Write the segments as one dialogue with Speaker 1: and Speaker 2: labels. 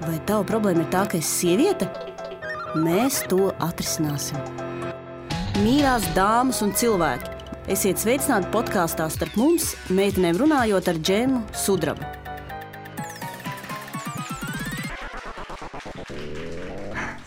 Speaker 1: Vai tava problēma ir tā, ka esi sieviete? Mēs to atrisināsim. Mīļās dāmas un cilvēki, esiet sveicināti podkāstā Starp mums, meitenēm runājot ar Džemu Sudrabu.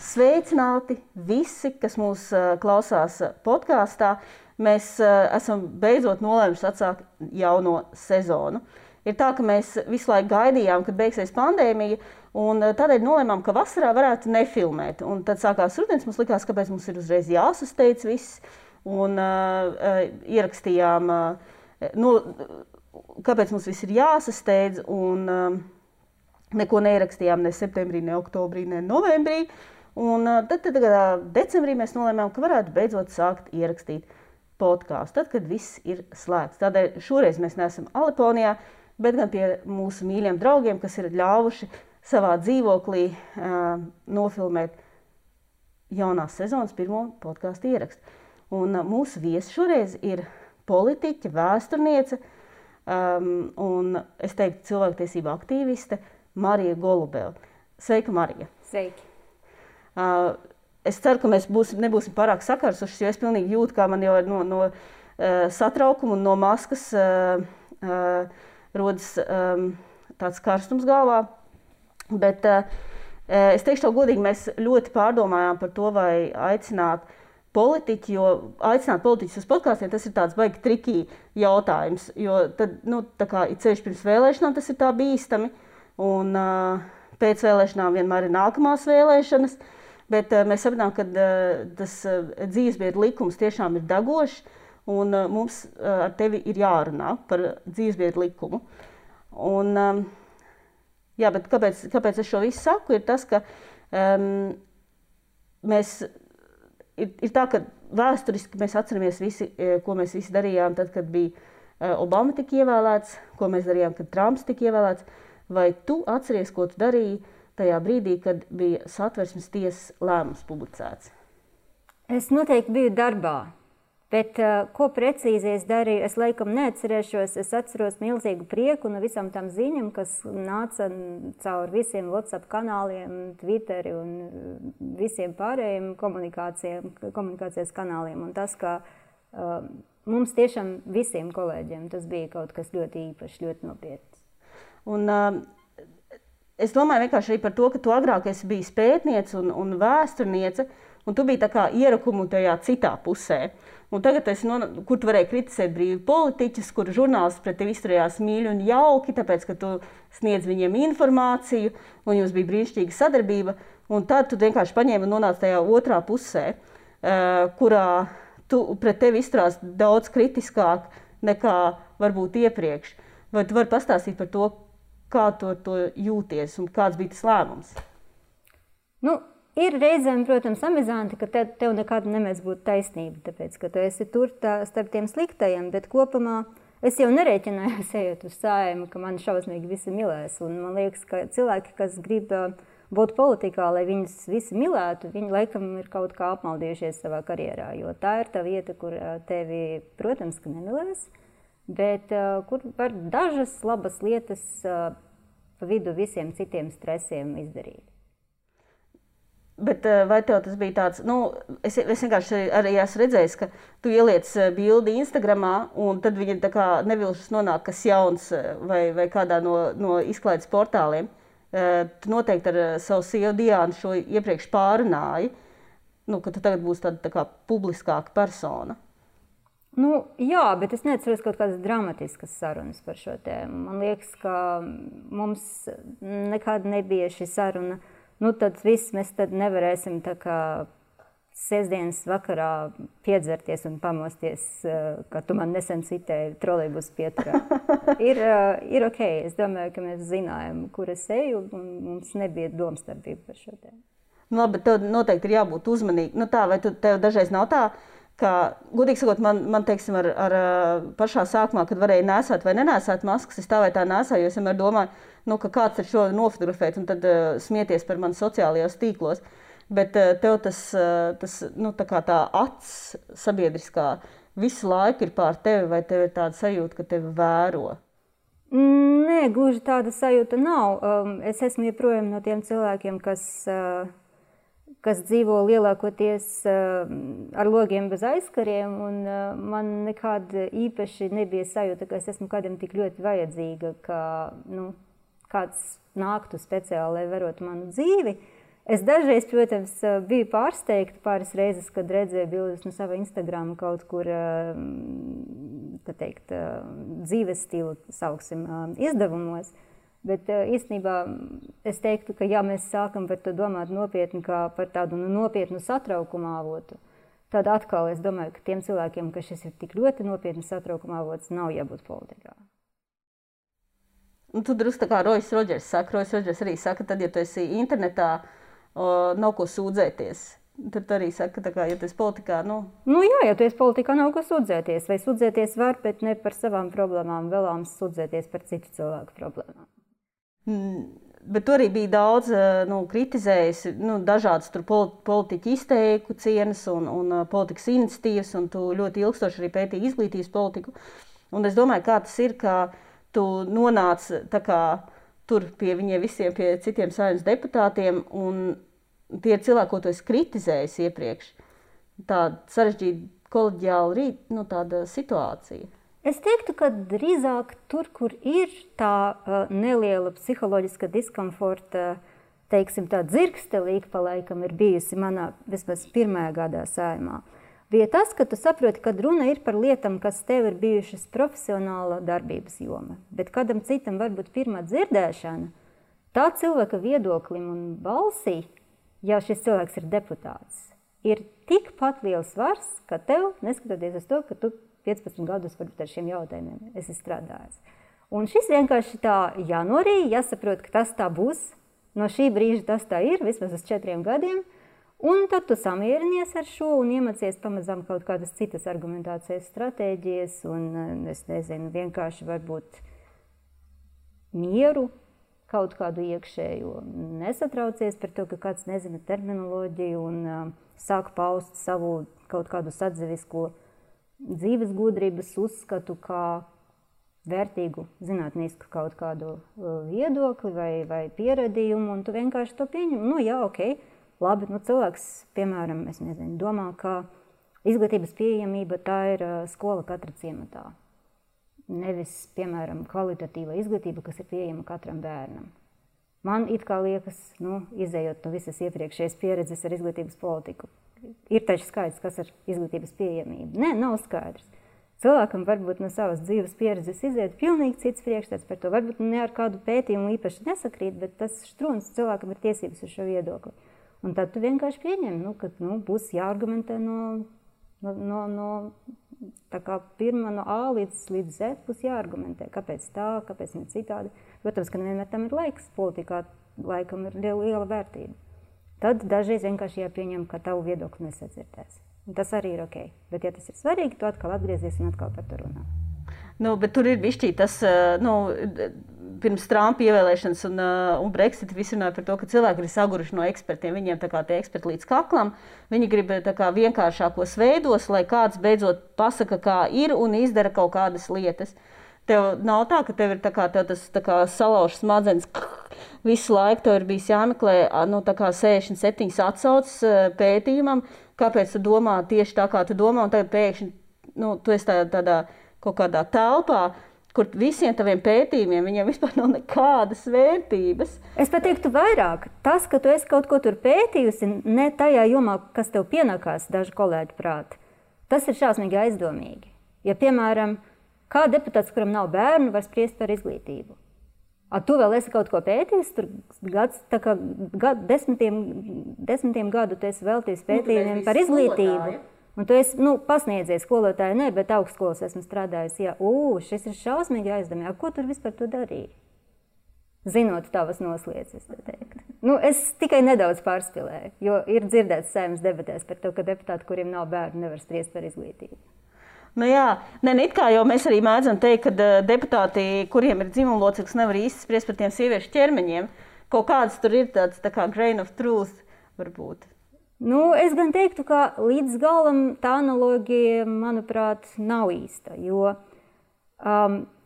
Speaker 1: Sveicināti visi, kas mūs klausās podkāstā. Mēs esam beidzot nolēmuši atsākt jauno sezonu. Ir tā, ka mēs visu laiku gaidījām, kad beigsies pandēmija, un tādēļ nolēmām, ka vasarā varētu nefilmēt. Un tad sākās rudens, mums likās, kāpēc mums ir uzreiz jāsasteidz viss, un ierakstījām, kāpēc mums viss ir jāsasteidz, un neko neierakstījām ne septembrī, ne oktobrī, ne novembrī. Un tad decembrī mēs nolēmām, ka varētu beidzot sākt ierakstīt podkāstu, tad, kad viss ir slēgts. Tādēļ šoreiz mēs neesam Aliponijā, bet gan pie mūsu mīļiem draugiem, kas ir ļāvuši savā dzīvoklī nofilmēt jaunās sezonas pirmo podkāstu ierakstu. Un mūsu viesi šoreiz ir politiķe, vēsturniece un, es teiktu, cilvēktiesība aktīviste Marija Golubeva. Sveika, Marija!
Speaker 2: Sveiki!
Speaker 1: Es ceru, ka mēs nebūsim pārāk sakarsušas, jo es pilnīgi jūtu, kā man jau no satraukuma un no maskas rodas tāds karstums galvā. Bet es teikšu tev godīgi, mēs ļoti pārdomājām par to, vai aicināt politiķi, jo aicināt politiķus uz podkāstiem, tas ir tāds baigi trikī jautājums, jo tad, tā kā ir ceļš pirms vēlēšanām, tas ir tā bīstami, un pēc vēlēšanām vienmēr ir nākamās vēlēšanas. Bet mēs sapratām, ka tas dzīvesbiedru likums tiešām ir degošs, un mums ar tevi ir jārunā par dzīvesbiedru likumu. Un, jā, bet kāpēc es šo visu saku, ir tas, ka ir tā, ka vēsturiski mēs atceramies visi, ko mēs visi darījām tad, kad bija Obama tika ievēlēts, ko mēs darījām, kad Trumps tika ievēlēts. Vai tu atceries, ko tu darīji tajā brīdī, kad bija Satversmes tiesas lēmums publicēts?
Speaker 2: Es noteikti biju darbā, bet ko precīzi es darīju, es laikam neatcerēšos. Es atceros milzīgu prieku no visām tām ziņām, kas nāca caur visiem WhatsApp kanāliem, Twitteri un visiem pārējiem komunikācijas kanāliem. Un tas, ka mums tiešām visiem kolēģiem tas bija kaut kas ļoti īpašs, ļoti nopietns.
Speaker 1: Un es domāju vienkārši arī par to, ka tu agrāk esi bijis pētniece un vēsturniece, un tu biji tā kā ierakumu tajā citā pusē. Un tagad kur tu varēji kritizēt brīvi politiķus, kur žurnālisti pret tevi izturējās mīļi un jauki, tāpēc, ka tu sniedz viņiem informāciju, un jums bija brīnišķīga sadarbība, un tad tu vienkārši paņēmi un nonāci tajā otrā pusē, kurā pret tevi izturās daudz kritiskāk nekā varbūt iepriekš. Vai tu vari pastāstīt par to, kā to jūties un kāds bija tas lēmums?
Speaker 2: Ir reizēm, protams, amizanti, ka tev nekad nemēdz būt taisnība, tāpēc, ka tu esi tur starp tiem sliktajiem, bet kopumā es jau nerēķinājos ejot uz Saeimu, ka mani šausmīgi visi milēs. Un man liekas, ka cilvēki, kas grib būt politikā, lai viņus visi milētu, viņi laikam ir kaut kā apmaldījušies savā karjerā, jo tā ir tā vieta, kur tevi, protams, ka nemilēs, bet kur var dažas labas lietas pa vidu visiem citiem stresiem izdarīt.
Speaker 1: Bet vai tev tas bija tāds, es vienkārši arī esmu redzējis, ka tu ieliec bildi Instagramā, un tad viņi tā kā nevilšas nonāk kas jauns vai kādā no izklaides portāliem. Tu noteikti ar savu sievu Diānu šo iepriekš pārunāji, ka tu tagad būsi tā kā publiskāka persona.
Speaker 2: Jā, bet es neatceros kaut kādas dramatiskas sarunas par šo tēmu. Man liekas, ka mums nekad nebija šī saruna. Tad viss mēs tad nevarēsim tā kā sestdienas vakarā piedzerties un pamosties, ka tu man nesen citēji trolejbus pieturā. Ir ok. Es domāju, ka mēs zinājām, kur es eju, un mums nebija domstarpība par šo tēmu.
Speaker 1: Labi, bet tev noteikti ir jābūt uzmanīgi. Vai tev dažreiz nav tā, ka, godīgi sakot, man teiksim, ar pašā sākumā, kad varēja nesāt vai nenēsāt maskas, es tā vai tā nesāju, jo es vienmēr domāju, ka kāds ir šo nofotografēt un tad smieties par mani sociālajos tīklos. Bet tev tas tā kā tā acs sabiedriskā visu laiku ir pār tevi, vai tev ir tāda sajūta, ka tevi vēro?
Speaker 2: Nē, Nē, gluži tāda sajūta nav. Es esmu joprojām no tiem cilvēkiem, kas dzīvo lielākoties ar logiem bez aizkariem, un man nekāda īpaši nebija sajūta, ka es esmu kādam tik ļoti vajadzīga, ka kāds nāktu speciāli, lai verotu manu dzīvi. Es dažreiz, protams, biju pārsteigta pāris reizes, kad redzēju bildes no sava Instagrama kaut kur, tā teikt, dzīves stilu, sauksim, izdevumos. Bet īstenībā es teiktu, ka ja mēs sākam par to domāt nopietni kā par tādu nopietnu satraukumu avotu, tad atkal es domāju, ka tiem cilvēkiem, ka šis ir tik ļoti nopietni satraukuma avots, nav jābūt politikā.
Speaker 1: Un tu drusku tā kā Rojas Rodžers saka, Rojas Rodžers arī saka, tad, ja tu esi internetā, nav ko sūdzēties. Tad arī saka, tā kā, ja tu esi politikā,
Speaker 2: jā, ja tu esi politikā, nav ko sūdzēties. Vai sūdzēties var, bet ne par savām problēmām, vēlams sūdzēties par citu cilvēku problēmām.
Speaker 1: Bet tu arī bija daudz kritizējis dažādas politiķu izteikucienas un politikas iniciatīvas, un tu ļoti ilgstoši arī pētīji izglītības politiku. Un es domāju, kā tas ir, ka tu nonāc tā kā tur pie viņiem visiem, pie citiem saimnes deputātiem, un tie ir cilvēki, ko tu esi kritizējis iepriekš. Tāda sarežģīta koleģiāla tāda situācija.
Speaker 2: Es teiktu, ka drīzāk tur, kur ir tā neliela psiholoģiska diskomforta, teiksim, tā dzirkstelīga pa laikam ir bijusi manā vismaz pirmajā gadā saimā, bija tas, ka tu saproti, ka runa ir par lietām, kas tev ir bijušas profesionāla darbības joma. Bet kādam citam varbūt pirmā dzirdēšana, tā cilvēka viedoklim un balsī, ja šis cilvēks ir deputāts, ir tikpat liels svars, ka tev, neskatoties uz to, ka tu 15 gadus varbūt ar šiem jautājumiem esi strādājis. Un šis vienkārši tā jānorīja, jāsaprot, ka tas tā būs, no šī brīža tas tā ir, vismaz uz 4 gadiem, un tad tu samierinies ar šo un iemācies pamazām kaut kādas citas argumentācijas stratēģijas un, es nezinu, vienkārši varbūt mieru, kaut kādu iekšējo. Nesatraucies par to, ka kāds nezina terminoloģiju un sāk paust savu kaut kādu sadzevisko dzīves gudrības uzskatu kā vērtīgu zinātnisku kaut kādu viedokli vai pieredījumu, un tu vienkārši to pieņem. Jā, ok. Labi, cilvēks, piemēram, es nezinu, domā, ka izglītības pieejamība tā ir skola katra ciematā. Nevis, piemēram, kvalitatīva izglītība, kas ir pieejama katram bērnam. Man it kā liekas, izējot no visas iepriekšējas pieredzes ar izglītības politiku, ir taču skaidrs, kas ir izglītības pieejamība. Nē, nav skaidrs. Cilvēkam varbūt no savas dzīves pieredzes iziet pilnīgi cits priekšstats par to. Varbūt ne ar kādu pētījumu īpaši nesakrīt, bet tas štruns cilvēkam ir tiesības uz šo viedokli. Un tad tu vienkārši pieņem, ka būs jāargumentē no tā kā pirmā no A līdz Z būs jāargumentē. Kāpēc tā, kāpēc ne citādi? Protams, ka nevienmēr tam ir laiks. Politikā laikam ir liela vērtība. Tad dažreiz vienkārši jāpieņem, ka tavu viedokli nesadzirdēs. Un tas arī ir ok. Bet ja tas ir svarīgi, tu atkal atgriezies un atkal par to runā.
Speaker 1: Bet tur ir bišķī tas, pirms Trumpa ievēlēšanas un Brexit visi runāja par to, ka cilvēki ir saguruši no ekspertiem. Viņiem tā kā tie eksperti līdz kaklam. Viņi grib tā kā vienkāršākos veidos, lai kāds beidzot pasaka, kā ir un izdara kaut kādas lietas. Tev nav tā, ka tev ir tev tas salaužs smadzenes visu laiku. Tev ir bijis jāmeklē 67 atsauces pētījumam, kāpēc tu domā tieši tā, kā tu domā, un tagad pēkšņi tu esi tādā kaut kādā telpā, kur visiem taviem pētījumiem viņiem vispār nav nekādas vērtības.
Speaker 2: Es pat teiktu vairāk. Tas, ka tu esi kaut ko tur pētījusi, ne tajā jomā, kas tev pienākās dažu kolēģu prāti, tas ir šausmīgi aizdomīgi. Ja, piemēram, kā deputāts, kuram nav bērnu, var spriest par izglītību. Tu vēl esi kaut ko pētījis, tur desmitiem gadu tu esi veltījis pētījumiem par izglītību. Un tu esi pasniedzies skolotāju, ne, bet augstskolas esmu strādājis. Jā, šis ir šausmīgi aizdomīgi. Ko tur vispār tu darīji? Zinot tavas noslieces, tā teikt. Es tikai nedaudz pārspilēju, jo ir dzirdēts saimnes debatēs par to, ka deputāti, kuriem nav bērnu, nevar spriest par izglītību.
Speaker 1: It kā jau mēs arī mēdzam teikt, ka deputāti, kuriem ir dzimumloceklis, nevar īsti spriest par tiem sieviešu ķermeņiem. Kaut kāds tur ir tāds tā kā grain of truth varbūt.
Speaker 2: Es gan teiktu, ka līdz galam tā analoģija, manuprāt, nav īsta, jo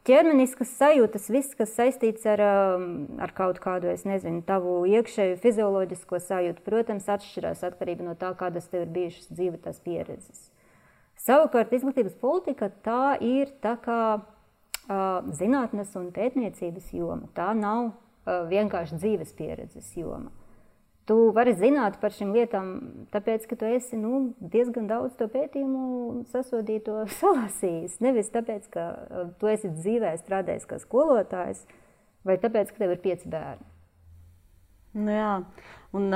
Speaker 2: ķermeniskas sajūtas, viss, kas saistīts ar kaut kādu, es nezinu, tavu iekšēju fizioloģisko sajūtu, protams, atšķirās atkarībā no tā, kādas tev ir bijušas dzīve tās pieredzes. Savukārt, izglītības politika tā ir tā kā zinātnes un pētniecības joma. Tā nav vienkārši dzīves pieredzes joma. Tu vari zināt par šīm lietām, tāpēc, ka tu esi diezgan daudz to pētījumu sasodīto salasījis. Nevis tāpēc, ka tu esi dzīvē strādājis kā skolotājs, vai tāpēc, ka tev ir 5 bērni.
Speaker 1: Nu jā, un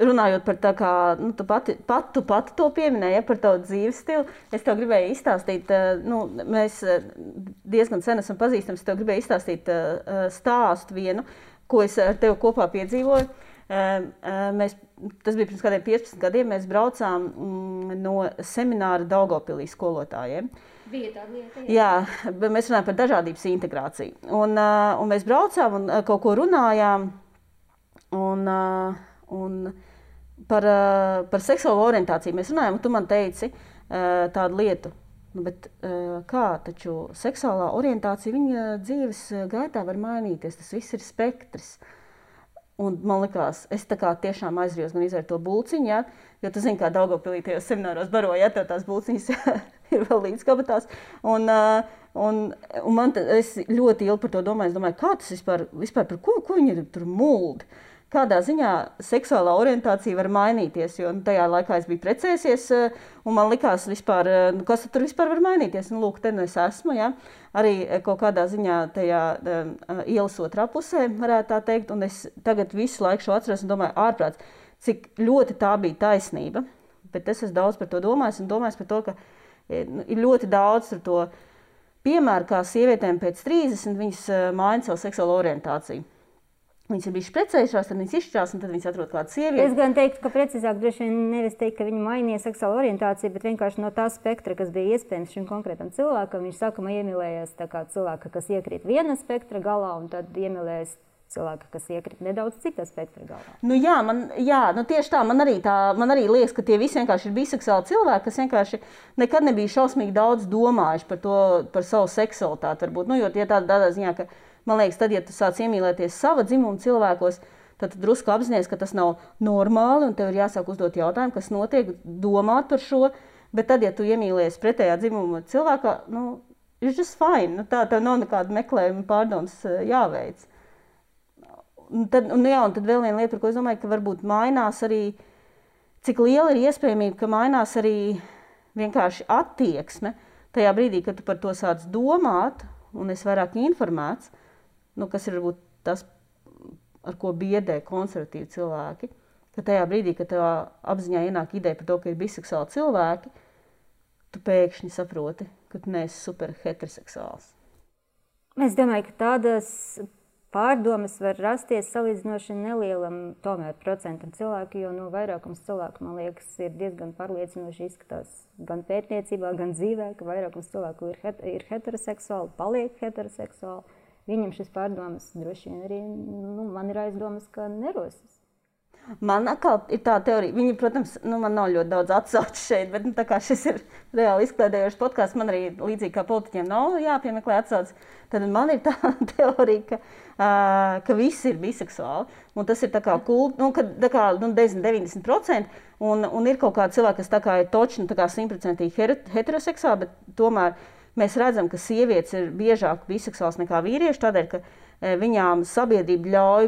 Speaker 1: runājot par tā kā, tu pati to pieminēji, par tavu dzīves stilu, es tev gribēju izstāstīt, mēs diezgan sen esam pazīstami, es tev gribēju izstāstīt stāstu vienu, ko es ar tevi kopā piedzīvoju. Tas bija pirms kādiem 15 gadiem, mēs braucām no semināra Daugavpilī skolotājiem.
Speaker 2: Bija tāda lieta?
Speaker 1: Jā, mēs runājam par dažādības integrāciju. Un mēs braucām un kaut ko runājām un par seksuālo orientāciju mēs runājām, un tu man teici tādu lietu. Bet kā, taču seksuālā orientācija viņa dzīves gaitā var mainīties, tas viss ir spektrs. Un man likās, es tā kā tiešām aizrijos gan izvērt to bulciņu, ja? Jo tu zini, kā Daugavpilī tajos semināros baroja, ja tev tās bulciņas ir vēl līdz kabatās. Un es ļoti ilgi par to domāju, es domāju, kā tas vispār par ko viņi tur muldi? Kādā ziņā seksuālā orientācija var mainīties, jo tajā laikā es biju precējusies, un man likās vispār, kas tur vispār var mainīties. Un lūk, te es esmu, ja? Arī kaut kādā ziņā tajā ielas otrā pusē, varētu tā teikt, un es tagad visu laiku šo atceros un domāju ārprāts, cik ļoti tā bija taisnība. Bet es esmu daudz par to domājis un domājis par to, ka ir ļoti daudz to piemēru, kā sievietēm pēc 30 viņas maina savu seksuālo orientāciju. Viņas ir bijušas precējušās, tad viņas izšķirās, un tad viņas atrod kādu sievieti.
Speaker 2: Es gan teiktu, ka precīzāk droši vien nevis teikt, ka viņi mainīja seksuālu orientāciju, bet vienkārši no tā spektra, kas bija iespējams šim konkrētam cilvēkam. Viņš sākumā iemīlējās tā kā cilvēka, kas iekrīt viena spektra galā, un tad iemīlējās cilvēka, kas iekrīt nedaudz cita spektra galā. Tieši tā. Man arī liekas, ka tie visi vienkārši ir biseksuāli cilvēki, kas vienkārši nekad nebija šausmīgi daudz domājuši par savu seksualitāti. Varbūt. Jo tādā ziņā, ka man liekas, tad, ja tu sāc iemīlēties sava dzimuma cilvēkos, tad tu drusku apzinies, ka tas nav normāli, un tev ir jāsāk uzdot jautājumu, kas notiek, domāt par šo. Bet tad, ja tu iemīlies pretējā dzimuma cilvēkā, it's just fine. Tā tev nav nekāda meklējuma pārdomas jāveic. Un tad vēl viena lieta, par ko es domāju, ka varbūt mainās arī, cik liela ir iespējamība, ka mainās arī vienkārši attieksme tajā brīdī, kad tu par to sāc domāt, un es vairāk informēts, kas ir varbūt tas, ar ko biedē konservatīvi cilvēki, ka tajā brīdī, kad tev apziņā ienāk ideja par to, ka ir biseksuāli cilvēki, tu pēkšņi saproti, ka tu neesi super heteroseksuāls. Es domāju, ka tādas pārdomas var rasties salīdzinoši nelielam tomēr procentam cilvēku, jo vairākums cilvēku, man liekas, ir diezgan pārliecinoši izskatās gan pētniecībā, gan dzīvē, ka vairākums cilvēku ir heteroseksuāli, paliek heteroseksuāli. Viņam šis pārdomas droši vien arī, man ir aizdomas, ka nerosas.
Speaker 1: Man atkal ir tā teorija, viņi, protams, man nav ļoti daudz atsauču šeit, bet tā kā šis ir reāli izklaidējošs podcasts, man arī līdzīgi kā politiķiem nav jāpiemeklē atsaucas, tad man ir tā teorija, ka visi ir biseksuāli, un tas ir tā kā kult, 90%, un ir kaut kādi cilvēki, kas tā kā ir točni, tā kā 100% heteroseksuāli, bet tomēr mēs redzam, ka sievietes ir biežāk biseksuāls nekā vīrieši, tādēļ, ka viņām sabiedrība ļauj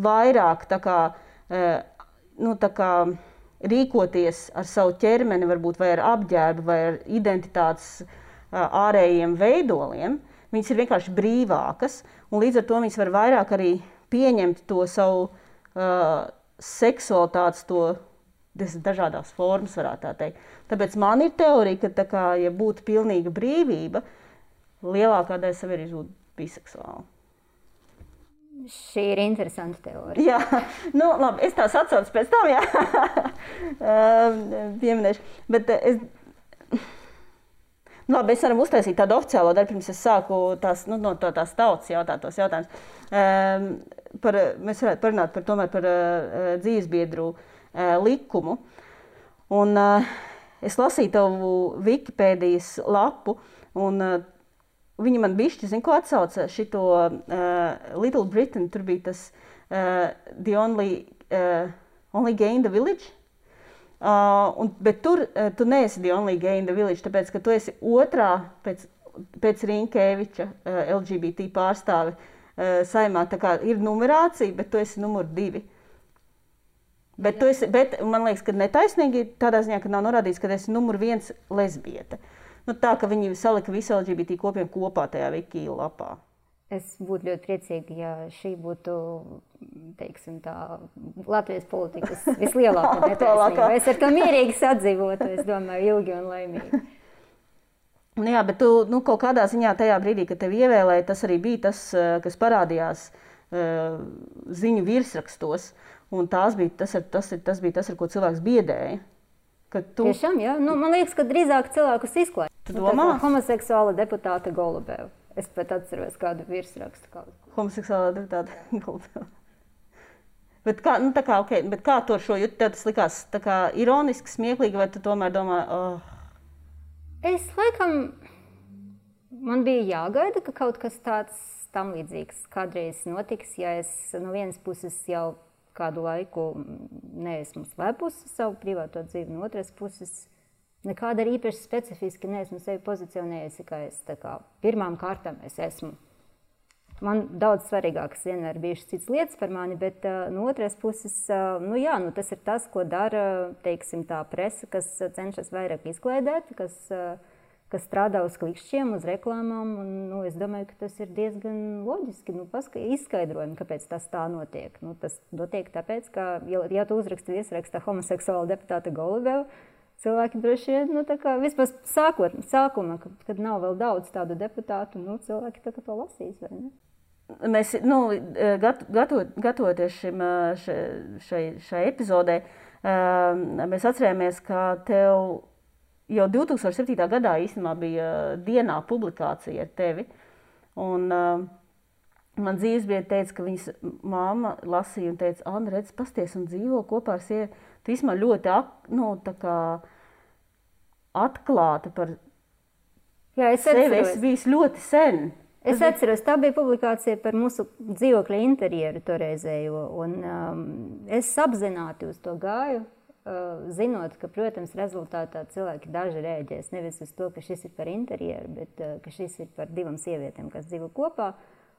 Speaker 1: vairāk tā kā rīkoties ar savu ķermeni, varbūt vai ar apģērbu, vai ar identitātes ārējiem veidoliem. Viņas ir vienkārši brīvākas, un līdz ar to viņas var vairāk arī pieņemt to savu seksualitātes, to dažādās formas, varētu tā teikt. Tāpēc man ir teorija, ka ja būtu pilnīga brīvība, lielākā daļa sabiedrības būtu biseksuāla.
Speaker 2: Šī ir interesanta teorija.
Speaker 1: Jā, labi, es tās atsaucu pēc tam, pieminēšu. Bet es varam uztaisīt tādu oficiālo daļu, pirms es sāku no tās tautas jautātos jautājumus. Mēs varētu parunāt par dzīvesbiedru likumu. Un es lasīju tavu Wikipēdijas lapu, un Viņi man bišķi, zin, ko atsauca šito Little Britain, tur bija tas The Only Gay in the Village. Bet tur tu neesi The Only Gay in the Village, tāpēc, ka tu esi otrā pēc Rinkēviča LGBT pārstāve saimā. Tā kā ir numerācija, bet tu esi numur 2. Bet man liekas, ka netaisnīgi tādā ziņā, ka nav norādīts, ka esi numur 1 lesbiete. Nu, tā, ka viņi salika visu LGBT kopiem kopā tajā Wiki lapā.
Speaker 2: Es būtu ļoti priecīga, ja šī būtu, teiksim tā, Latvijas politikas vislielākā netaisnība. Es ar to mierīgi sadzīvotu, es domāju, ilgi un laimīgi.
Speaker 1: Nu jā, bet tu kaut kādā ziņā tajā brīdī, kad tevi ievēlēja, tas arī bija tas, kas parādījās ziņu virsrakstos. Un tas bija tas, ar ko cilvēks biedēja.
Speaker 2: Tiešām, jā. Nu, man liekas, ka drīzāk cilvēkus izklāja.
Speaker 1: Tu domā?
Speaker 2: Homoseksuāla deputāta Golubeva. Es pat atceros kādu virsrakstu.
Speaker 1: Homoseksuālā deputāta Golubeva. Bet kā tu ar šo jūti? Tev tas likās tā kā ironiski, smieklīgi, vai tu tomēr domā,
Speaker 2: Es laikam, man bija jāgaida, ka kaut kas tāds tam līdzīgs kādreiz notiks, ja es no vienas puses jau kādu laiku neesmu slēpusi savu privāto dzīvi, no otras puses nekāda arī īpaši specifiski neesmu sevi pozicionējusi, ka es tā kā pirmām kārtām es esmu. Man daudz svarīgākas vienmēr bijušas citas lietas par mani, bet no otras puses, tas ir tas, ko dara, teiksim, tā presa, kas cenšas vairāk izklaidēt, kas strādā uz klikšķiem, uz reklāmām, un es domāju, ka tas ir diezgan loģiski, izskaidrojumi, kāpēc tas tā notiek. Tas notiek tāpēc, ka, ja tu uzraksti viesrakstā homoseksuāla deputāta Golubeva, cilvēki droši vien, vispār sākuma, kad nav vēl daudz tādu deputātu, cilvēki tā kā to lasīs, vai ne?
Speaker 1: Mēs, gatavoties šai epizodē, mēs atcerējāmies, ka tev jau 2007. gadā īstenībā bija dienā publikācija ar tevi. Un man dzīvesbiedri teica, ka viņas mamma lasīja un teica, Anna, redz, pasties un dzīvo kopā ar sievu. Tu īstenībā ļoti atklāta par sevi. Es biju ļoti sen.
Speaker 2: Es atceros, tā bija publikācija par mūsu dzīvokļa interjeru toreizējo, un es apzināti uz to gāju, zinot, ka, protams, rezultātā cilvēki daži rēģēs nevis uz to, ka šis ir par interjeru, bet ka šis ir par 2 sievietēm, kas dzīvo kopā.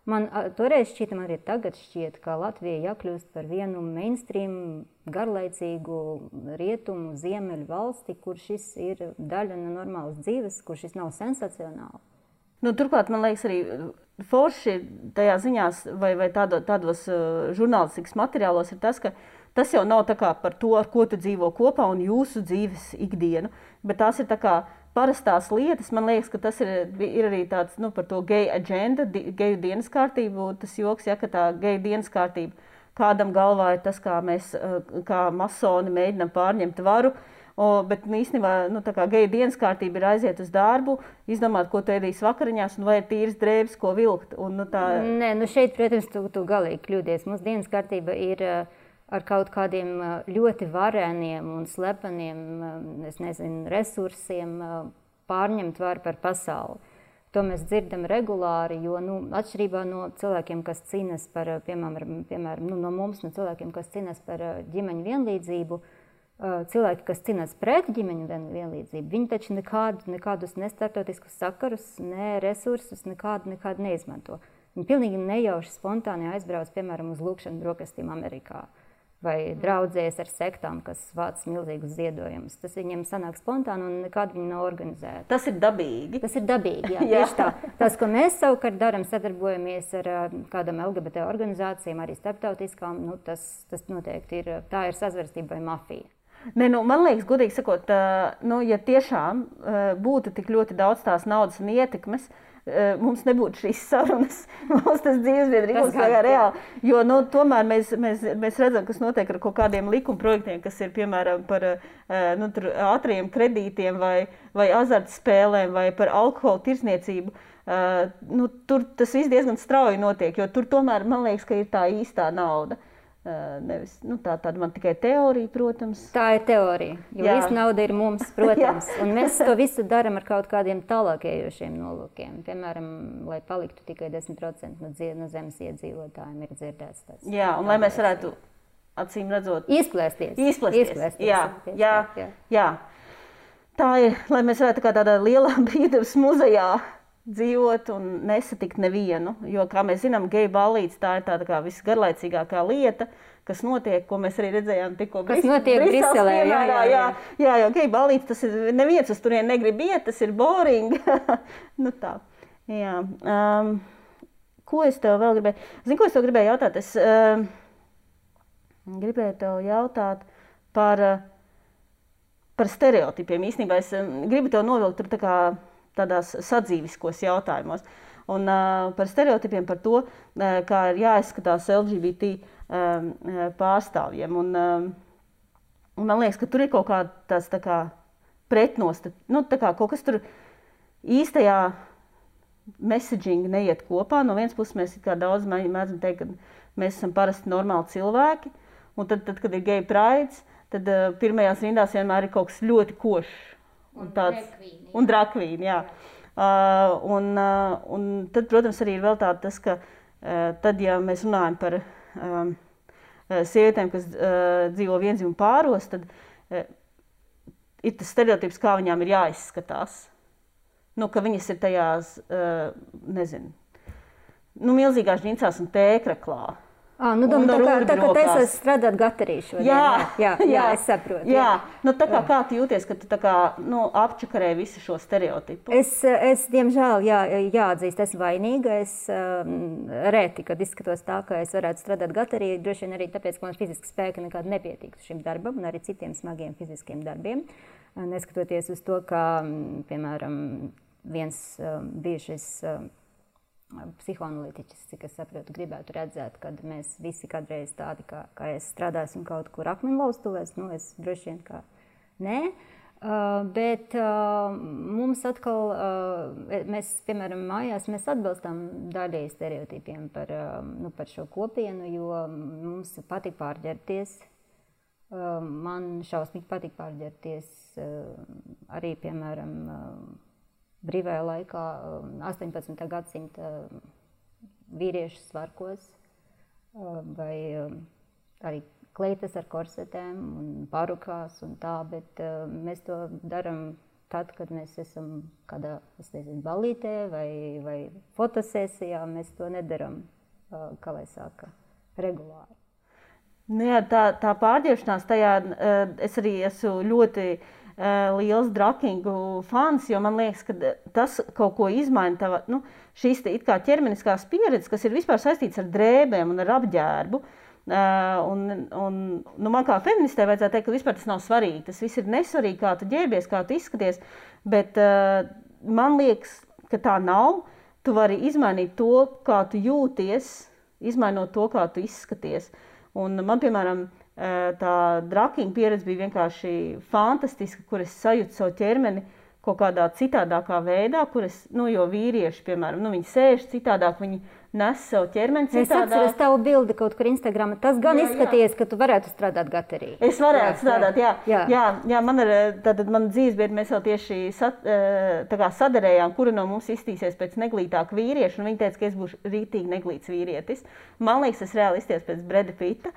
Speaker 2: Man toreiz šķita, man arī tagad šķiet, ka Latvija jākļūst par vienu mainstream, garlaicīgu rietumu, ziemeļu valsti, kur šis ir daļa no normālas dzīves, kur šis nav sensacionāli.
Speaker 1: Turklāt, man liekas, arī forši tajā ziņās vai tādos žurnālistikas materiālos ir tas, ka tas jau nav tā kā par to, ar ko tu dzīvo kopā un jūsu dzīves ikdienu, bet tās ir tā kā parastās lietas. Man liekas, ka tas ir arī tāds par to gay agenda, geju dienas kārtību, tas joks, ja, ka tā geju dienas kārtība kādam galvā ir tas, kā mēs, kā masoni mēģinam pārņemt varu. Bet īstenībā tā kā geju dienas kārtība ir aiziet uz darbu, izdomāt, ko tu ēdīs vakariņās, un vai ir tīras drēbes, ko vilkt.
Speaker 2: Nē, šeit, protams, tu galīgi kļūdies. Mūsu dienas kārtība ir ar kaut kādiem ļoti varēniem un slepeniem, resursiem pārņemt varu par pasauli. To mēs dzirdam regulāri, jo atšķirībā no cilvēkiem, kas cīnas par, piemēram, no mums, no cilvēkiem, kas cīnas par ģimeņu vienlīdzību, cilvēki, kas cīnās pret ģimeņu vienlīdzību, viņi taču nekādus ne starptautiskus sakarus, ne resursus nekādu neizmanto. Viņi pilnīgi nejauši spontāni aizbrauc, piemēram, uz lūkšanu brokastīm Amerikā vai draudzējas ar sektām, kas vāc milzīgus ziedojumus. Tas viņiem sanāk spontāni un nekādi viņi nav organizēti.
Speaker 1: Tas ir dabīgi.
Speaker 2: Tas ir dabīgi, jā. Tieši tā. Tas, ko mēs savukārt daram, sadarbojamies ar kādam LGBT organizācijām, arī starptautiskām, tas noteikti ir, tā ir sazverstība vai mafija.
Speaker 1: Man liekas, godīgi sakot, ja tiešām būtu tik ļoti daudz tās naudas un ietekmes, mums nebūtu šīs sarunas, mums tas dzīvesbiedri būs kā reāli. Jo tomēr mēs redzam, kas notiek ar kaut kādiem likumprojektiem, kas ir piemēram par ātriem kredītiem vai azartspēlēm vai par alkohola tirdzniecību. Tur tas viss diezgan strauji notiek, jo tur tomēr man liekas, ka ir tā īstā nauda. nevis, tāda man tikai teorija, protams.
Speaker 2: Tā ir teorija, jo visa nauda ir mums, protams, un mēs to visu daram ar kaut kādiem tālākējošiem nolūkiem. Piemēram, lai paliktu tikai 10% no zemes iedzīvotājiem ir dzirdēts tas.
Speaker 1: Jā, un lai mēs varētu, acīm redzot,
Speaker 2: Izplēsties.
Speaker 1: Jā. Tā ir, lai mēs varētu kā tādā lielā brīvdabas muzejā dzīvot un nesatikt nevienu, jo, kā mēs zinām, geju ballītes tā ir tāda kā visgarlaicīgākā lieta, kas notiek, ko mēs arī redzējām tikko
Speaker 2: Briselē.
Speaker 1: Jā, jo geju ballītes, tas ir, neviens uz turien negrib iet, tas ir boring. Tā. Jā. Ko es tev vēl gribēju? Zini, ko es tev gribēju jautāt? Es gribēju tev jautāt par stereotipiem. Īstenībā es gribu tev novilkt tur tādās sadzīviskos jautājumos. Un par stereotipiem, par to, kā ir jāizskatās LGBT pārstāvjiem. Un man liekas, ka tur ir kaut kāds pretnostat, kaut kas tur īstajā messaging neiet kopā. No vienas puses mēs daudz mēdzam teikt, ka mēs esam parasti normāli cilvēki, un tad kad ir gay prides, tad pirmajās rindās vienmēr ir kaut kas ļoti košs. Un drakvīni, jā. Un tad, protams, arī ir vēl tas, ka tad, ja mēs runājam par sievietēm, kas dzīvo viendzimumu pāros, tad ir tas stereotips, kā viņām ir jāizskatās. Ka viņas ir tajās, milzīgās džinsās un tēkraklā.
Speaker 2: Tā kā taisās strādāt gatarī šodien. Jā, es saprotu.
Speaker 1: Jā. Kā tu jūties, ka tu apčakarē visu šo stereotipu?
Speaker 2: Es diemžēl, jāatzīst, esmu vainīga. Es reti, kad izskatos tā, ka es varētu strādāt gatarī, droši vien arī tāpēc, ka man fiziski spēki nekādi nepietiktu šim darbam un arī citiem smagiem fiziskiem darbiem. Neskatoties uz to, ka, piemēram, viens bijušais psihoanalītiķis, cik es saprotu, gribētu redzēt, kad mēs visi kādreiz tādi, kā es strādāsim kaut kur akmeņlaustuvēs, es droši vien kā nē, bet mums atkal, mēs, piemēram, mājās, mēs atbalstām daļēji stereotipiem par šo kopienu, jo mums patīk pārģērbties. Man šausmīgi patīk pārģērbties arī, piemēram, brīvajā laikā 18. gadsimta vīriešu svarkos vai arī kleitas ar korsetēm un parukās un tā, bet mēs to daram tad, kad mēs esam kādā, ballītē vai fotosesijā, mēs to nedaram, kā lai saka, regulāri.
Speaker 1: Jā, tā pārģērbšanās tajā, es arī esmu ļoti liels drakingu fans, jo man liekas, ka tas kaut ko izmaina šīs it kā ķermeniskās pieredzes, kas ir vispār saistīts ar drēbēm un ar apģērbu. Man kā feministē vajadzētu teikt, ka vispār tas nav svarīgi. Tas viss ir nesvarīgi, kā tu ģērbies, kā tu izskaties, bet man liekas, ka tā nav. Tu vari izmainīt to, kā tu jūties, izmainot to, kā tu izskaties. Un man, piemēram, tā drakinga pieredze bija vienkārši fantastiska, kur es sajūtu savu ķermeni kaut kādā citādākā veidā, kur es, jo vīrieši, piemēram, viņi sēž citādāk, viņi nes savu ķermeni citādāk.
Speaker 2: Es atceros tavu bildi kaut kur Instagramā. Tas gan izskaties, ka tu varētu strādāt gatarī.
Speaker 1: Es varētu strādāt, jā. Man dzīvesbiedri, mēs jau tieši sadarējām, kura no mums iztīsies pēc neglītāka vīrieša, un viņi teica, ka es būšu rītīgi neglīts vīrietis. Man liekas, es reāli izties pēc Breda Pitta.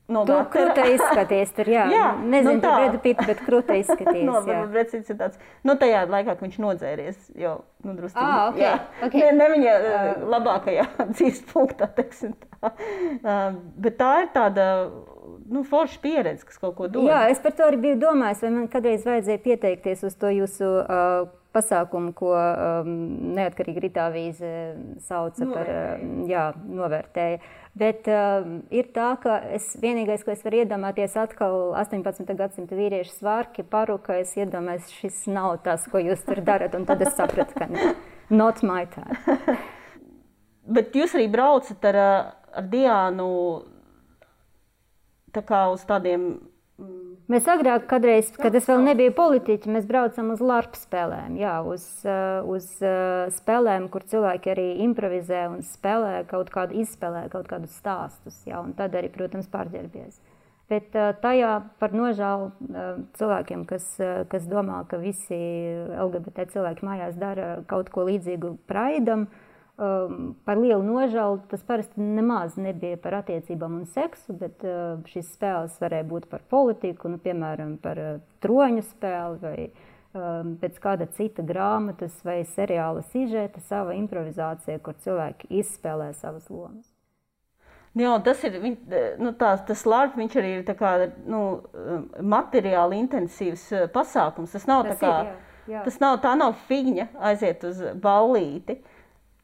Speaker 2: Tu krūta izskaties tur, jā. Nezinu, par Bredu Pittu, bet krūta izskaties, jā.
Speaker 1: Breds Pitts ir tāds, tajā laikā, ka viņš nodzēries, jo, drusku.
Speaker 2: Okay.
Speaker 1: Ne viņa labākajā dzīves punktā, teiksim tā. Bet tā ir tāda, forša pieredze, kas kaut ko dod.
Speaker 2: Jā, es par to arī biju domājis, vai man kādreiz vajadzēja pieteikties uz to jūsu pasākumu, ko neatkarīgi Ritāvīze sauca par, novērtēja. Bet ir tā, ka vienīgais, ko es varu iedomāties, atkal 18. gadsimta vīriešu svārki, paruka, es iedomājos, šis nav tas, ko jūs tur darat, un tad es sapratu, ka not my time.
Speaker 1: Bet jūs arī braucat ar Diānu tā kā uz tādiem
Speaker 2: Mēs agrāk, kadreiz, kad es vēl nebiju politiķi, mēs braucam uz LARP spēlēm, jā, uz spēlēm, kur cilvēki arī improvizē un spēlē izspēlē kaut kādus stāstus, jā, un tad arī, protams, pārģērbies. Bet tajā par nožēlu cilvēkiem, kas domā, ka visi LGBT cilvēki mājās dara kaut ko līdzīgu Praidam, par lielu nožēlu tas parasti nemaz nebija par attiecībām un seksu, bet šīs spēles varēja būt par politiku, nu, piemēram, par troņu spēli vai pēc kāda cita grāmatas vai seriāla sižeta, sava improvizācija, kur cilvēki izspēlē savas lomas.
Speaker 1: Jā, tas ir, tas LARP, viņš arī ir tā kā, materiāli intensīvs pasākums. Tas nav tā nav figņa aiziet uz ballīti.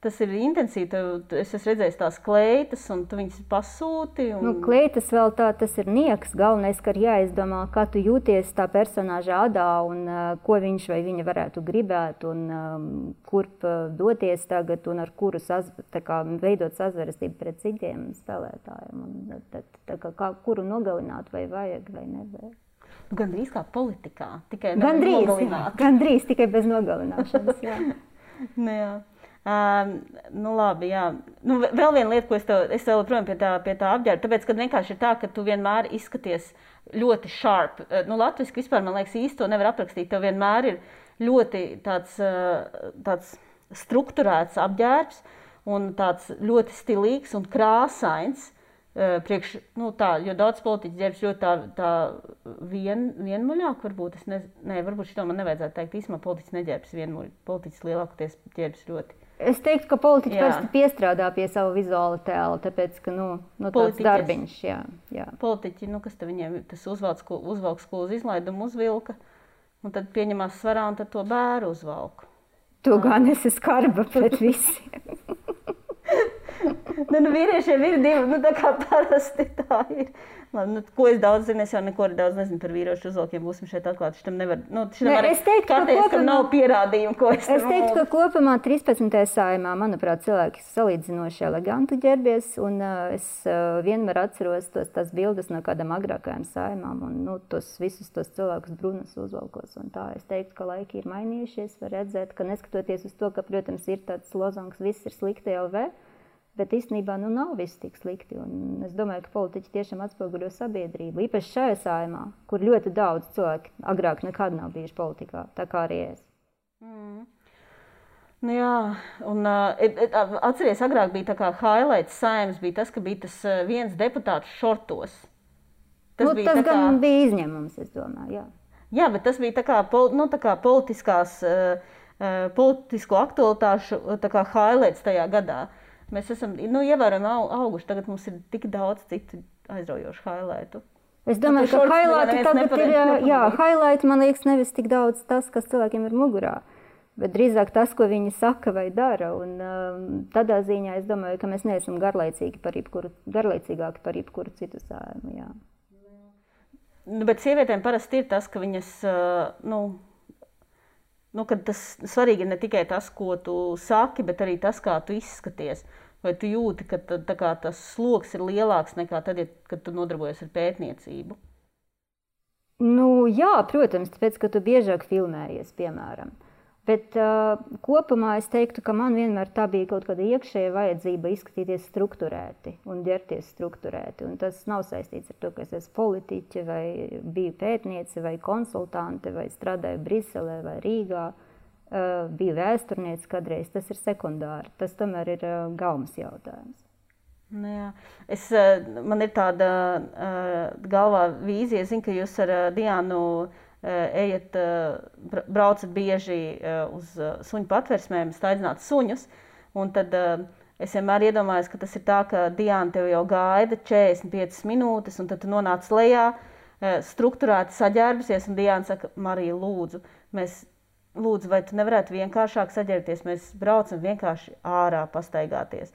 Speaker 1: Tas ir intensīvi, es esmu redzējis tās kleitas, un tu viņas pasūti.
Speaker 2: Kleitas vēl tas ir nieks. Galvenais, ka ir jāizdomā, kā tu jūties tā personāža adā, un ko viņš vai viņa varētu gribēt, un kurp doties tagad, un ar kuru veidot sazvērestību pret citiem spēlētājiem. Un kuru nogalināt vai vajag vai nevajag.
Speaker 1: Gandrīz kā politikā, tikai
Speaker 2: Gandrīz, tikai bez nogalināšanas, jā.
Speaker 1: Jā. Labi, jā. Vēl viena lieta, ko es vēl projām pie tā apģērba, tāpēc, ka vienkārši ir tā, ka tu vienmēr izskaties ļoti sharp. Latviski vispār, man liekas, īsti to nevar aprakstīt. Tev vienmēr ir ļoti tāds strukturēts apģērbs un tāds ļoti stilīgs un krāsains. Jo daudz politiķu ģērbs ļoti tā vienmuļāk, varbūt. Varbūt šito man nevajadzētu teikt. Īsumā politiķis neģērbs vienmuļ. Politiķis lielākoties ģērbs ļoti.
Speaker 2: Es teiktu, ka politiķi parasti piestrādā pie savu vizuāla tēla, tāpēc, ka, tāds darbiņš, jā.
Speaker 1: Politiķi, kas te viņiem, tas uzvalks, ko uz izlaidumu uzvilka, un tad pieņemās svarā, un tad to bēru uzvalku.
Speaker 2: To gan esi skarba pret visiem.
Speaker 1: Vīriešiem ir divi, tā kā parasti tā ir. Ko es daudz zinu, es jau neko daudz nezinu par vīriešu uzvalkiem, būsim šeit atklāti. Šitam nevar, kam nav pierādījumu, ko es
Speaker 2: teiktu, ka kopumā 13. Saeimā, manuprāt, cilvēki salīdzinoši eleganti ģērbies, un es vienmēr atceros tās bildes no kādām agrākajām saimām, un visus tos cilvēkus brunas uzvalkos, un tā. Es teiktu, ka laiki ir mainījušies, var redzēt, ka neskatoties uz to, ka, protams, ir tāds lozungs, viss ir slikti LV, bet īstenībā nav viss tik slikti. Un es domāju, ka politiķi tiešām atspoguļo sabiedrību. Īpaši šajā saimā, kur ļoti daudz cilvēki agrāk nekad nav bijuši politikā, tā kā arī es.
Speaker 1: Jā, un atceries, agrāk bija tā kā highlights saimas, bija tas, ka bija tas viens deputāts šortos.
Speaker 2: Tas gan bija izņēmums, es domāju, jā.
Speaker 1: Jā, bet tas bija tā kā politisko aktualitāšu highlights tajā gadā. Mēs esam ievērojami auguši. Tagad mums ir tik daudz citu aizraujošu highlightu.
Speaker 2: Es domāju, ka highlighti tagad ir, highlighti, man liekas, nevis tik daudz tas, kas cilvēkiem ir mugurā, bet drīzāk tas, ko viņi saka vai dara. Un tādā ziņā es domāju, ka mēs neesam garlaicīgāki par jebkuru citu saimu, jā.
Speaker 1: Bet sievietēm parasti ir tas, ka viņas, kad tas svarīgi ir ne tikai tas, ko tu saki, bet arī tas, kā tu izskaties. Vai tu jūti, ka tas sloks ir lielāks nekā tad, kad tu nodarbojies ar pētniecību?
Speaker 2: Jā, protams, tāpēc, ka tu biežāk filmējies, piemēram. Bet kopumā es teiktu, ka man vienmēr tā bija kaut kāda iekšēja vajadzība izskatīties strukturēti un ģerties strukturēti. Un tas nav saistīts ar to, ka es esmu politiķe vai biju pētniece vai konsultante vai strādāju Briselē vai Rīgā. Biju vēsturniece kādreiz. Tas ir sekundāri. Tas tomēr ir galvas jautājums.
Speaker 1: Jā. Man ir tāda galvā vīzija. Es zinu, ka jūs ar Diānu braucat bieži uz suņu patversmēm, staigāt suņus, un tad es vienmēr iedomājos, ka tas ir tā, ka Diāna tev jau gaida 45 minūtes, un tad tu nonāc lejā, strukturēti saģērbusies, un Diāna saka, Marija, lūdzu, vai tu nevarētu vienkāršāk saģērbties, mēs braucam vienkārši ārā pastaigāties.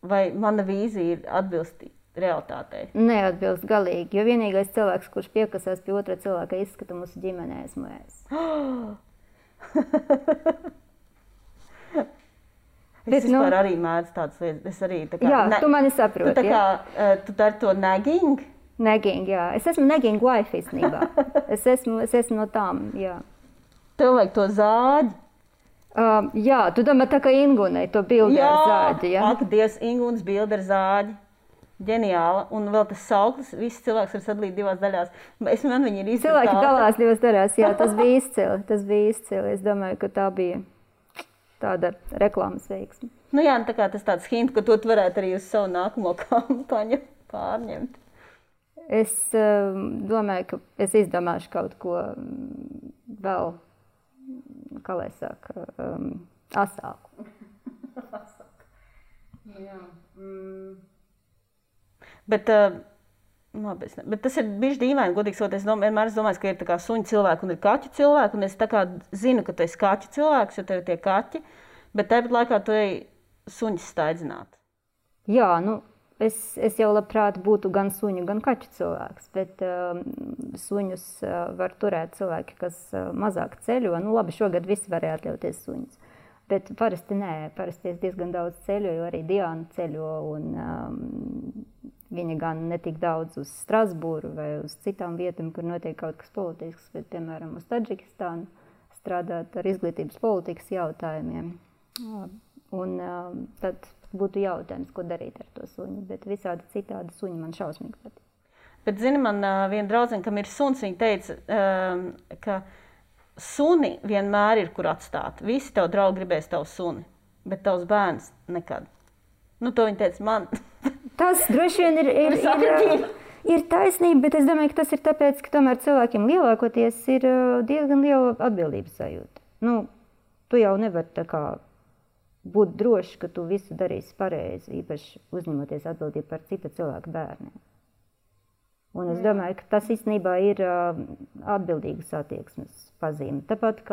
Speaker 1: Vai mana vīzija ir atbilstīga realitātei?
Speaker 2: Neatbilst galīgi, jo vienīgais cilvēks, kurš piekasās pie otra cilvēka izskata mūsu ģimenē, esmu es. Es vispār arī mēdzu tādas lietas. Tu mani saproti.
Speaker 1: Tu dari to nagging?
Speaker 2: Nagging, jā. Es esmu nagging wife īstenībā. Es esmu no tām, jā.
Speaker 1: Tev vajag to zāģi.
Speaker 2: Jā, tu domā tā kā Ingunai, to bildi ar zāģi, jā?
Speaker 1: Ak, Dievs, Ingunas bildi ar zāģi. Ģeniāla. Un vēl tas sauklis, viss cilvēks var sadalīt divās daļās. Man viņi ir izdarīti.
Speaker 2: Cilvēki dalās divās daļās, jā, tas bija izcili. Es domāju, ka tā bija tāda reklāmas veiksme.
Speaker 1: Nu jā, tā kā tas tāds hint, ka to varētu arī uz savu nākamo kampaņu pārņemt.
Speaker 2: Es domāju, ka es izdomāšu kaut ko vēl, kā lai saka, asāku.
Speaker 1: Jā. Bet tas ir bijis dīvaini, godīgi sakot. Es vienmēr domāju, ka ir tā kā suņu cilvēki un ir kaķu cilvēki. Un es tā kā zinu, ka tu esi kaķu cilvēks, jo tev ir tie kaķi. Bet tāpat laikā tu ej suņus staidzināt.
Speaker 2: Jā, nu, es jau labprāt būtu gan suņu, gan kaķu cilvēks. Bet suņus var turēt cilvēki, kas mazāk ceļo. Nu, labi, šogad visi varēja atļauties suņus. Bet parasti nē, parasti es diezgan daudz ceļoju, arī Diana ceļo, un viņa gan netik daudz uz Strasbūru vai uz citām vietām, kur notiek kaut kas politisks, bet, piemēram, uz Tadžikistānu strādāt ar izglītības politikas jautājumiem. Un tad būtu jautājums, ko darīt ar to suņu, bet visādi citādi suņi man šausmīgi patīk.
Speaker 1: Bet, zini, man viena draudzene, kam ir suns, viņa teica, ka suni vienmēr ir, kur atstāt. Visi tev draugi gribēs tavu suni, bet tavs bērns nekad. Nu, to viņa teica man.
Speaker 2: Tas droši vien ir taisnība, bet es domāju, ka tas ir tāpēc, ka tomēr cilvēkiem lielākoties ir diezgan liela atbildības sajūta. Nu, tu jau nevari tā kā būt droši, ka tu visu darīsi pareizi, īpaši uzņemoties atbildību par cita cilvēka bērniem. Un es domāju, ka tas īstenībā ir atbildīgas attieksmes pazīme. Tāpat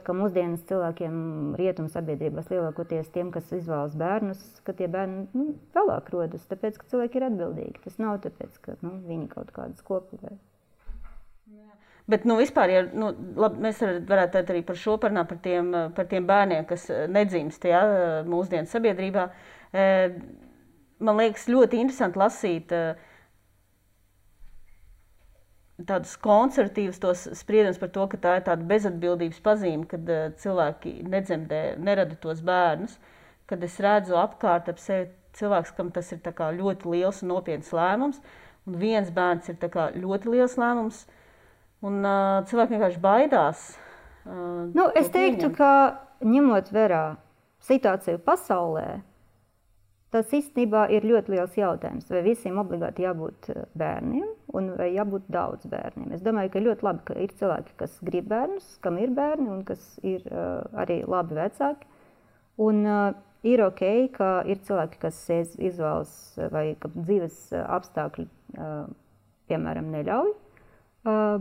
Speaker 2: kā mūsdienas cilvēkiem rietumu sabiedrībās lielākoties tiem, kas izvēlas bērnus, ka tie bērni vēlāk rodas, tāpēc, ka cilvēki ir atbildīgi. Tas nav tāpēc, ka viņi kaut kādas kopīgi.
Speaker 1: Bet vispār, ja, labi, mēs varētu arī par šo parunāt, par tiem bērniem, kas nedzimst mūsdienu sabiedrībā. Man liekas ļoti interesanti lasīt tādus konservatīvus tos spriedumus par to, ka tā ir tāda bezatbildības pazīme, kad cilvēki nedzemdē, nerada tos bērnus. Kad es redzu apkārt ap sevi cilvēks, kam tas ir tā kā ļoti liels un nopietns lēmums, un viens bērns ir tā kā ļoti liels lēmums, un cilvēki vienkārši baidās.
Speaker 2: Es teiktu, ka ņemot vērā situāciju pasaulē, tas īstenībā ir ļoti liels jautājums, vai visiem obligāti jābūt bērniem un vai jābūt daudz bērniem. Es domāju, ka ļoti labi, ka ir cilvēki, kas grib bērnus, kam ir bērni un kas ir arī labi vecāki. Un ir ok, ka ir cilvēki, kas izvēlas vai ka dzīves apstākļi, piemēram, neļauj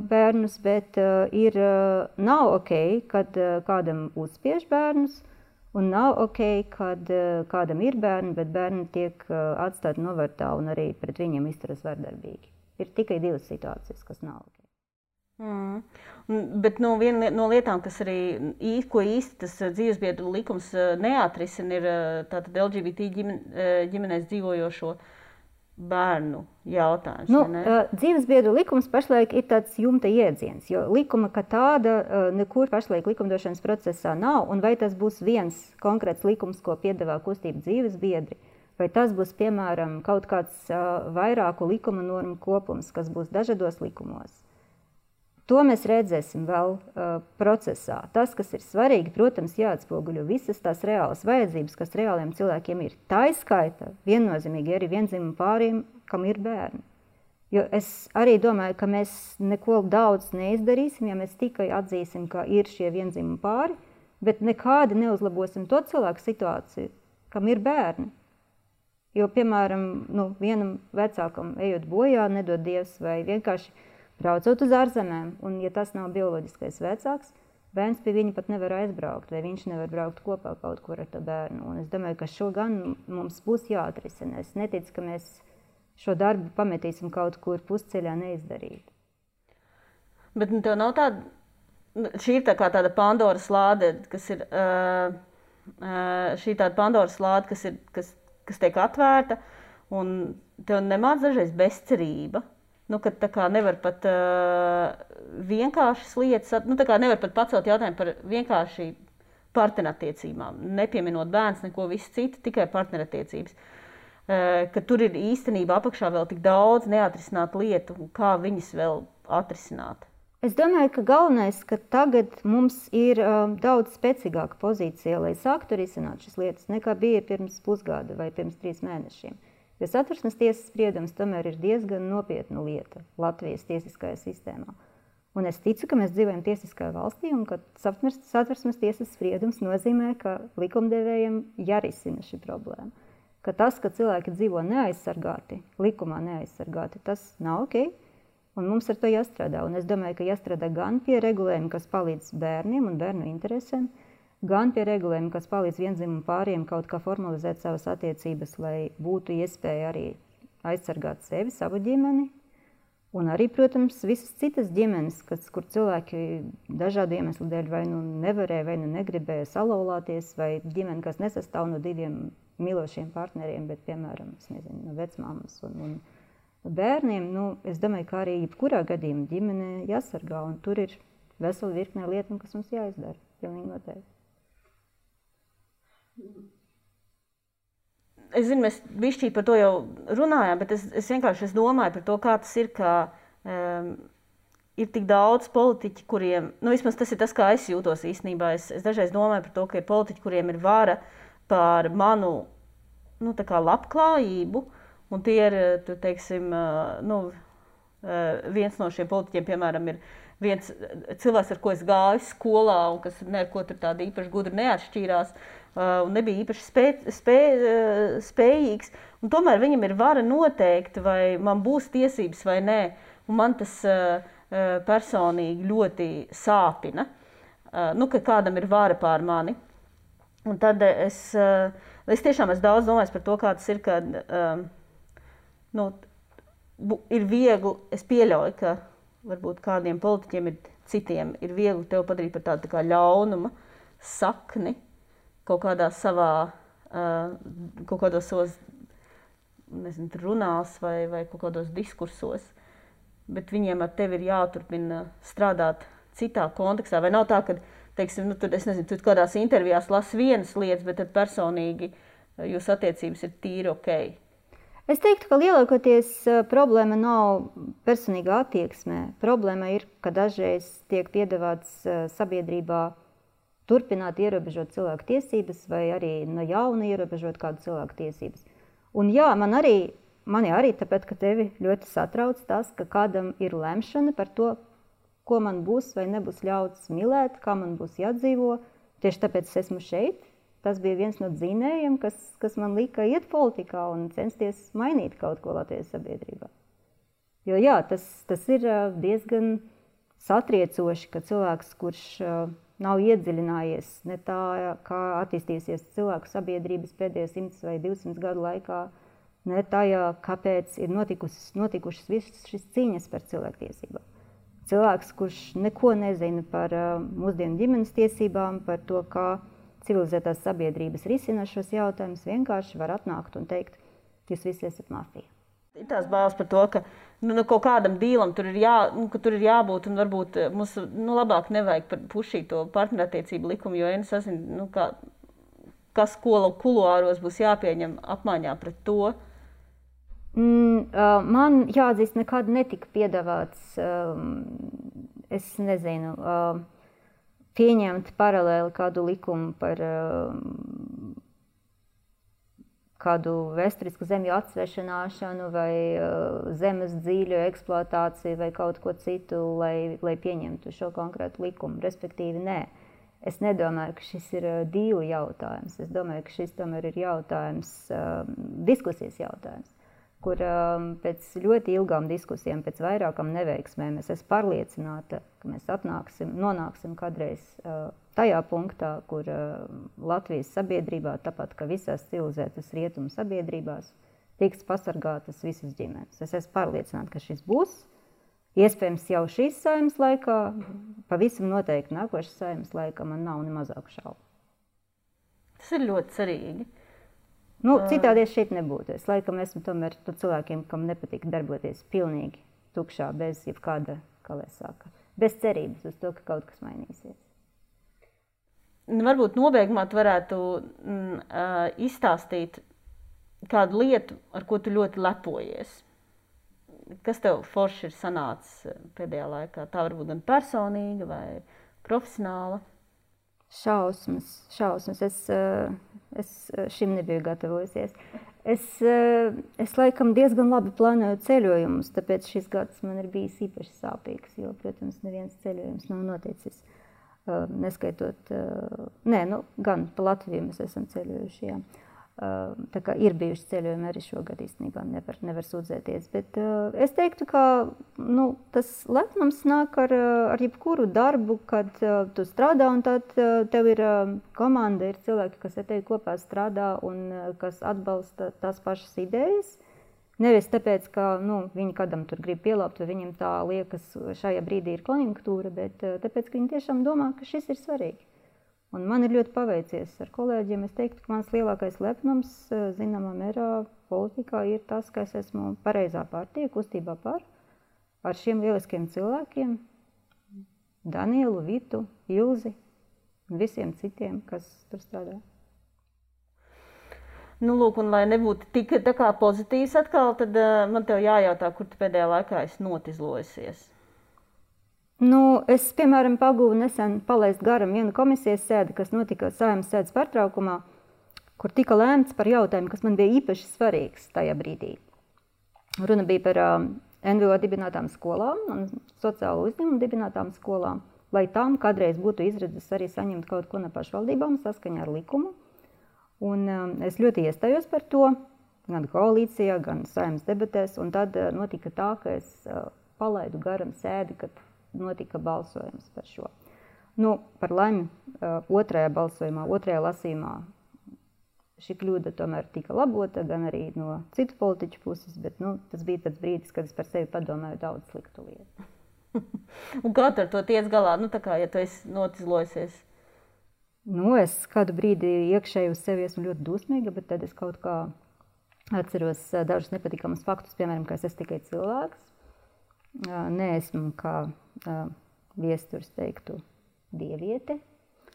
Speaker 2: bērnus, bet nav ok, kad kādam uzspiež bērnus. Un nav ok, kad kādam ir bērni, bet bērni tiek atstāti novārtā un arī pret viņiem izturas vardarbīgi. Ir tikai divas situācijas, kas nav ok.
Speaker 1: Bet viena no lietām, kas arī ko īsti tas dzīvesbiedru likums neatrisina, ir tātad LGBT ģimenēs dzīvojošo bērnu jautājums.
Speaker 2: Dzīvesbiedru likums pašlaik ir tāds jumta iedziens, jo likuma kā tāda nekur pašlaik likumdošanas procesā nav, un vai tas būs viens konkrēts likums, ko piedāvā kustība dzīvesbiedri, vai tas būs, piemēram, kaut kāds vairāku likuma normu kopums, kas būs dažādos likumos. To mēs redzēsim vēl procesā. Tas, kas ir svarīgi, protams, jāatspoguļo visas tās reālas vajadzības, kas reāliem cilvēkiem ir. Tā izskaita viennozīmīgi arī viendzimumu pāriem, kam ir bērni. Jo es arī domāju, ka mēs neko daudz neizdarīsim, ja mēs tikai atzīsim, ka ir šie viendzimumu pāri, bet nekādi neuzlabosim to cilvēku situāciju, kam ir bērni. Jo, piemēram, vienam vecākam ejot bojā, nedod Dievs, vai vienkārši braucot uz ārzemēm, un ja tas nav bioloģiskais vecāks, bērns pie viņa pat nevar aizbraukt, vai viņš nevar braukt kopā kaut kur ar to bērnu. Un es domāju, ka šo gan mums būs jāatrisina. Es neticu, ka mēs šo darbu pametīsim kaut kur pusceļā neizdarīt.
Speaker 1: Bet tev nav tāda, šī ir tā kā tāda Pandoras lāde, kas ir, šī tāda Pandoras lāde, kas tiek atvērta, Un tev nemāc dažreiz bezcerība. Nu, kad tā kā nevar pat vienkāršas lietas, nu, tā kā nevar pat pacelt jautājumu par vienkārši partnerattiecībām, nepieminot bērns, neko visu citu, tikai partnerattiecības. Ka tur ir īstenībā apakšā vēl tik daudz neatrisināt lietu, kā viņas vēl atrisināt.
Speaker 2: Es domāju, ka galvenais, ka tagad mums ir daudz spēcīgāka pozīcija, lai sāktu risināt šīs lietas, nekā bija pirms pusgada vai pirms 3 mēnešiem. Jo Satversmes tiesas spriedums tomēr ir diezgan nopietna lieta Latvijas tiesiskajā sistēmā. Un es ticu, ka mēs dzīvojam tiesiskajā valstī un ka Satversmes tiesas spriedums nozīmē, ka likumdevējiem jārisina šī problēma. Ka tas, ka cilvēki dzīvo neaizsargāti, likumā neaizsargāti, tas nav ok. Un mums ar to jāstrādā. Un es domāju, ka jāstrādā gan pie regulējuma, kas palīdz bērniem un bērnu interesēm, gan pie regulējuma, kas palīdz viendzimumu pāriem kaut kā formalizēt savas attiecības, lai būtu iespēja arī aizsargāt sevi, savu ģimeni. Un arī, protams, visas citas ģimenes, kur cilvēki dažādu iemeslu dēļ vai nu nevarēja, vai nu negribēja salauzties, vai ģimene, kas nesastāv no 2 mīlošiem partneriem, bet, piemēram, no vecmāmas un bērniem. Nu, es domāju, ka arī jebkurā gadījumā ģimene jāsargā, un tur ir vesela virkne lietu, kas mums jāizdara. Pilnīgi noteikti.
Speaker 1: Es zinu, mēs bišķīt par to jau runājām, bet es vienkārši domāju par to, kā tas ir, ka ir tik daudz politiķi, kuriem, nu vismaz tas ir tas, kā es jūtos īstenībā. Es dažreiz domāju par to, ka ir politiķi, kuriem ir vara pār manu, nu tā kā labklājību, un tie ir, tu teiksim, nu, viens no šiem politiķiem, piemēram, ir viens cilvēks, ar ko es gāju skolā, un kas neko tur tādi īpaši gudri neatšķīrās, un nebija īpaši spējīgs. Un tomēr viņam ir vara noteikt, vai man būs tiesības vai nē. Un man tas personīgi ļoti sāpina, nu, ka kādam ir vara pār mani. Un tad es tiešām esmu daudz domājis par to, kā tas ir, kad nu, ir viegli, es pieļauju, ka varbūt kādiem politiķiem citiem ir viegli tev padarīt par tādu tā kā ļaunuma sakni kaut kādā savā, kaut kādos savos, nezinu, runās vai kaut kādos diskursos, bet viņiem ar tevi ir jāturpina strādāt citā kontekstā. Vai nav tā, ka, teiksim, nu, tur, es nezinu, tu kādās intervijās lasi vienas lietas, bet tad personīgi jūsu attiecības ir tīri ok?
Speaker 2: Es teiktu, ka lielākoties problēma nav personīgā attieksmē. Problēma ir, ka dažreiz tiek piedāvāts sabiedrībā turpināt ierobežot cilvēku tiesības vai arī no jauna ierobežot kādu cilvēku tiesības. Un jā, mani arī tāpēc, ka tevi ļoti satrauc tas, ka kādam ir lemšana par to, ko man būs vai nebūs ļauts mīlēt, kā man būs jādzīvo. Tieši tāpēc es esmu šeit. Tas bija viens no dzinējiem, kas man lika iet politikā un censties mainīt kaut ko Latvijas sabiedrībā. Jo jā, tas ir diezgan satriecoši, ka cilvēks, kurš nav iedziļinājies ne tā, kā attīstīsies cilvēku sabiedrības pēdējos 100 vai 200 gadu laikā, ne tajā, kāpēc ir notikušas visas šīs cīņas par cilvēktiesībām. Cilvēks, kurš neko nezina par mūsdienu ģimenes tiesībām, par to, kā civilizētās sabiedrības risina šos jautājumus, vienkārši var atnākt un teikt, jūs visi esat mafija.
Speaker 1: Ir tās bāles par to, ka kaut kādam dīlam tur ir jābūt, un varbūt mums labāk nevajag pušīt to partnerattiecību likumu, jo es nezinu, kas kuluāros būs jāpieņem apmaiņā pret to.
Speaker 2: Man jāatzīst, nekad netika piedāvāts, es nezinu, pieņemt paralēli kādu likumu par kādu vēsturisku zemju atsvešināšanu vai zemes dzīļu eksploatāciju vai kaut ko citu, lai pieņemtu šo konkrētu likumu. Respektīvi, nē. Es nedomāju, ka šis ir dīlu jautājums. Es domāju, ka šis tomēr ir jautājums, diskusijas jautājums, kur pēc ļoti ilgām diskusijām, pēc vairākām neveiksmēm, es esmu pārliecināta, ka mēs nonāksim kādreiz tajā punktā, kur Latvijas sabiedrībā, tāpat kā visās civilizētas rietumu sabiedrībās, tiks pasargātas visas ģimenes. Es esmu pārliecināta, ka šis būs. Iespējams jau šīs saeimas laikā, pavisam noteikti nākošas saeimas laikā man nav ne mazāku šaubu.
Speaker 1: Tas ir ļoti cerīgi.
Speaker 2: Nu, citādi es šeit nebūtu. Es laikam esmu tomēr par cilvēkiem, kam nepatīk darboties pilnīgi tukšā, bez jebkāda, kā lai saka, bez cerības uz to, ka kaut kas mainīsies.
Speaker 1: Varbūt nobeigumā tu varētu izstāstīt kādu lietu, ar ko tu ļoti lepojies. Kas tev forši ir sanācis pēdējā laikā? Tā varbūt gan personīga vai profesionāla?
Speaker 2: Šausmas. Es šim nebiju gatavojusies. Es laikam diezgan labi plānoju ceļojumus, tāpēc šis gads man ir bijis īpaši sāpīgs, jo, protams, neviens ceļojums nav noticis. Neskaitot, gan pa Latviju mēs esam ceļojuši, jā. Tā kā ir bijuši ceļojumi arī šogad īstenībā, nevar sūdzēties, bet es teiktu, ka tas lepnums nāk ar jebkuru darbu, kad tu strādā un tad tev ir komanda, ir cilvēki, kas ar tevi kopā strādā un kas atbalsta tās pašas idejas. Nevis tāpēc, ka viņi kādam tur grib pielāpt, vai viņam tā liekas šajā brīdī ir konjunktūra, bet tāpēc, ka viņi tiešām domā, ka šis ir svarīgi. Un man ir ļoti paveicies ar kolēģiem. Es teiktu, ka mans lielākais lepnums, zināmā mērā, politikā ir tas, ka es esmu pareizā partija, kustībā par, ar šiem lieliskiem cilvēkiem, Danielu, Vitu, Ilzi un visiem citiem, kas tur strādā.
Speaker 1: Lūk, un lai nebūtu tik tā kā pozitīvs atkal, tad man tev jājautā, kur tu pēdējā laikā esi notizlojusies.
Speaker 2: Es, piemēram, pagūvu nesen palaist garam vienu komisijas sēdi, kas notika Saeimas sēdes pārtraukumā, kur tika lēmts par jautājumu, kas man bija īpaši svarīgs tajā brīdī. Runa bija par NVO dibinātām skolām un sociālo uzņēmumu dibinātām skolām, lai tām kādreiz būtu izredzes arī saņemt kaut ko no pašvaldībām saskaņā ar likumu. Un es ļoti iestājos par to, gan koalīcijā, gan Saeimas debatēs, un tad notika tā, ka es palaidu garam sēdi, kad notika balsojums par šo. Par laimi otrajā balsojumā, otrajā lasījumā šī kļūda tomēr tika labota, gan arī no citu politiķu puses, bet tas bija tāds brīdis, kad es par sevi padomāju daudz sliktu lietu.
Speaker 1: Un kā tu ar to tiec galā? Tā kā, ja tu esi notizlojusies?
Speaker 2: Es kādu brīdi iekšēji uz sevi esmu ļoti dusmīga, bet tad es kaut kā atceros dažus nepatikamus faktus, piemēram, ka es esmu tikai cilvēks. Neesmu, kā viesturs teiktu, dieviete.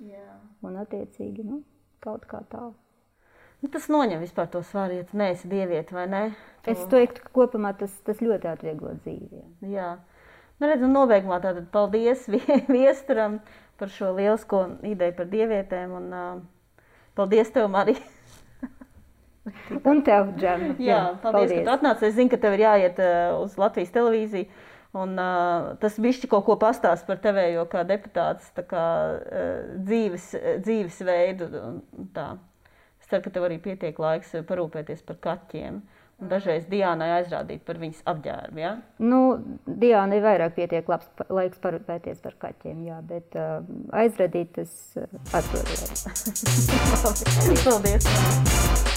Speaker 2: Jā. Un attiecīgi, kaut kā tā.
Speaker 1: Tas noņem vispār to svaru, ja tu neesi dieviete, vai ne?
Speaker 2: Es teiktu, ka kopumā tas ļoti atvieglo dzīvi.
Speaker 1: Jā. Redz, un nobeigumā tātad paldies viesturam par šo lielisko ideju par dievietēm, un paldies tev, Marija.
Speaker 2: Un tev, Džem.
Speaker 1: Jā, paldies, ka tu atnāc. Es zinu, ka tev ir jāiet uz Latvijas televīziju, un tas bišķi kaut ko pastāst par tevējo kā deputāts, tā kā dzīvesveidu. Tā. Es ceru, ka tev arī pietiek laiks parūpēties par kaķiem. Un dažreiz Diānai aizrādīt par viņas apģērbu, jā?
Speaker 2: Diānai vairāk pietiek labs laiks parūpēties par kaķiem, jā, bet aizrādīt es atrodēju.
Speaker 1: Paldies!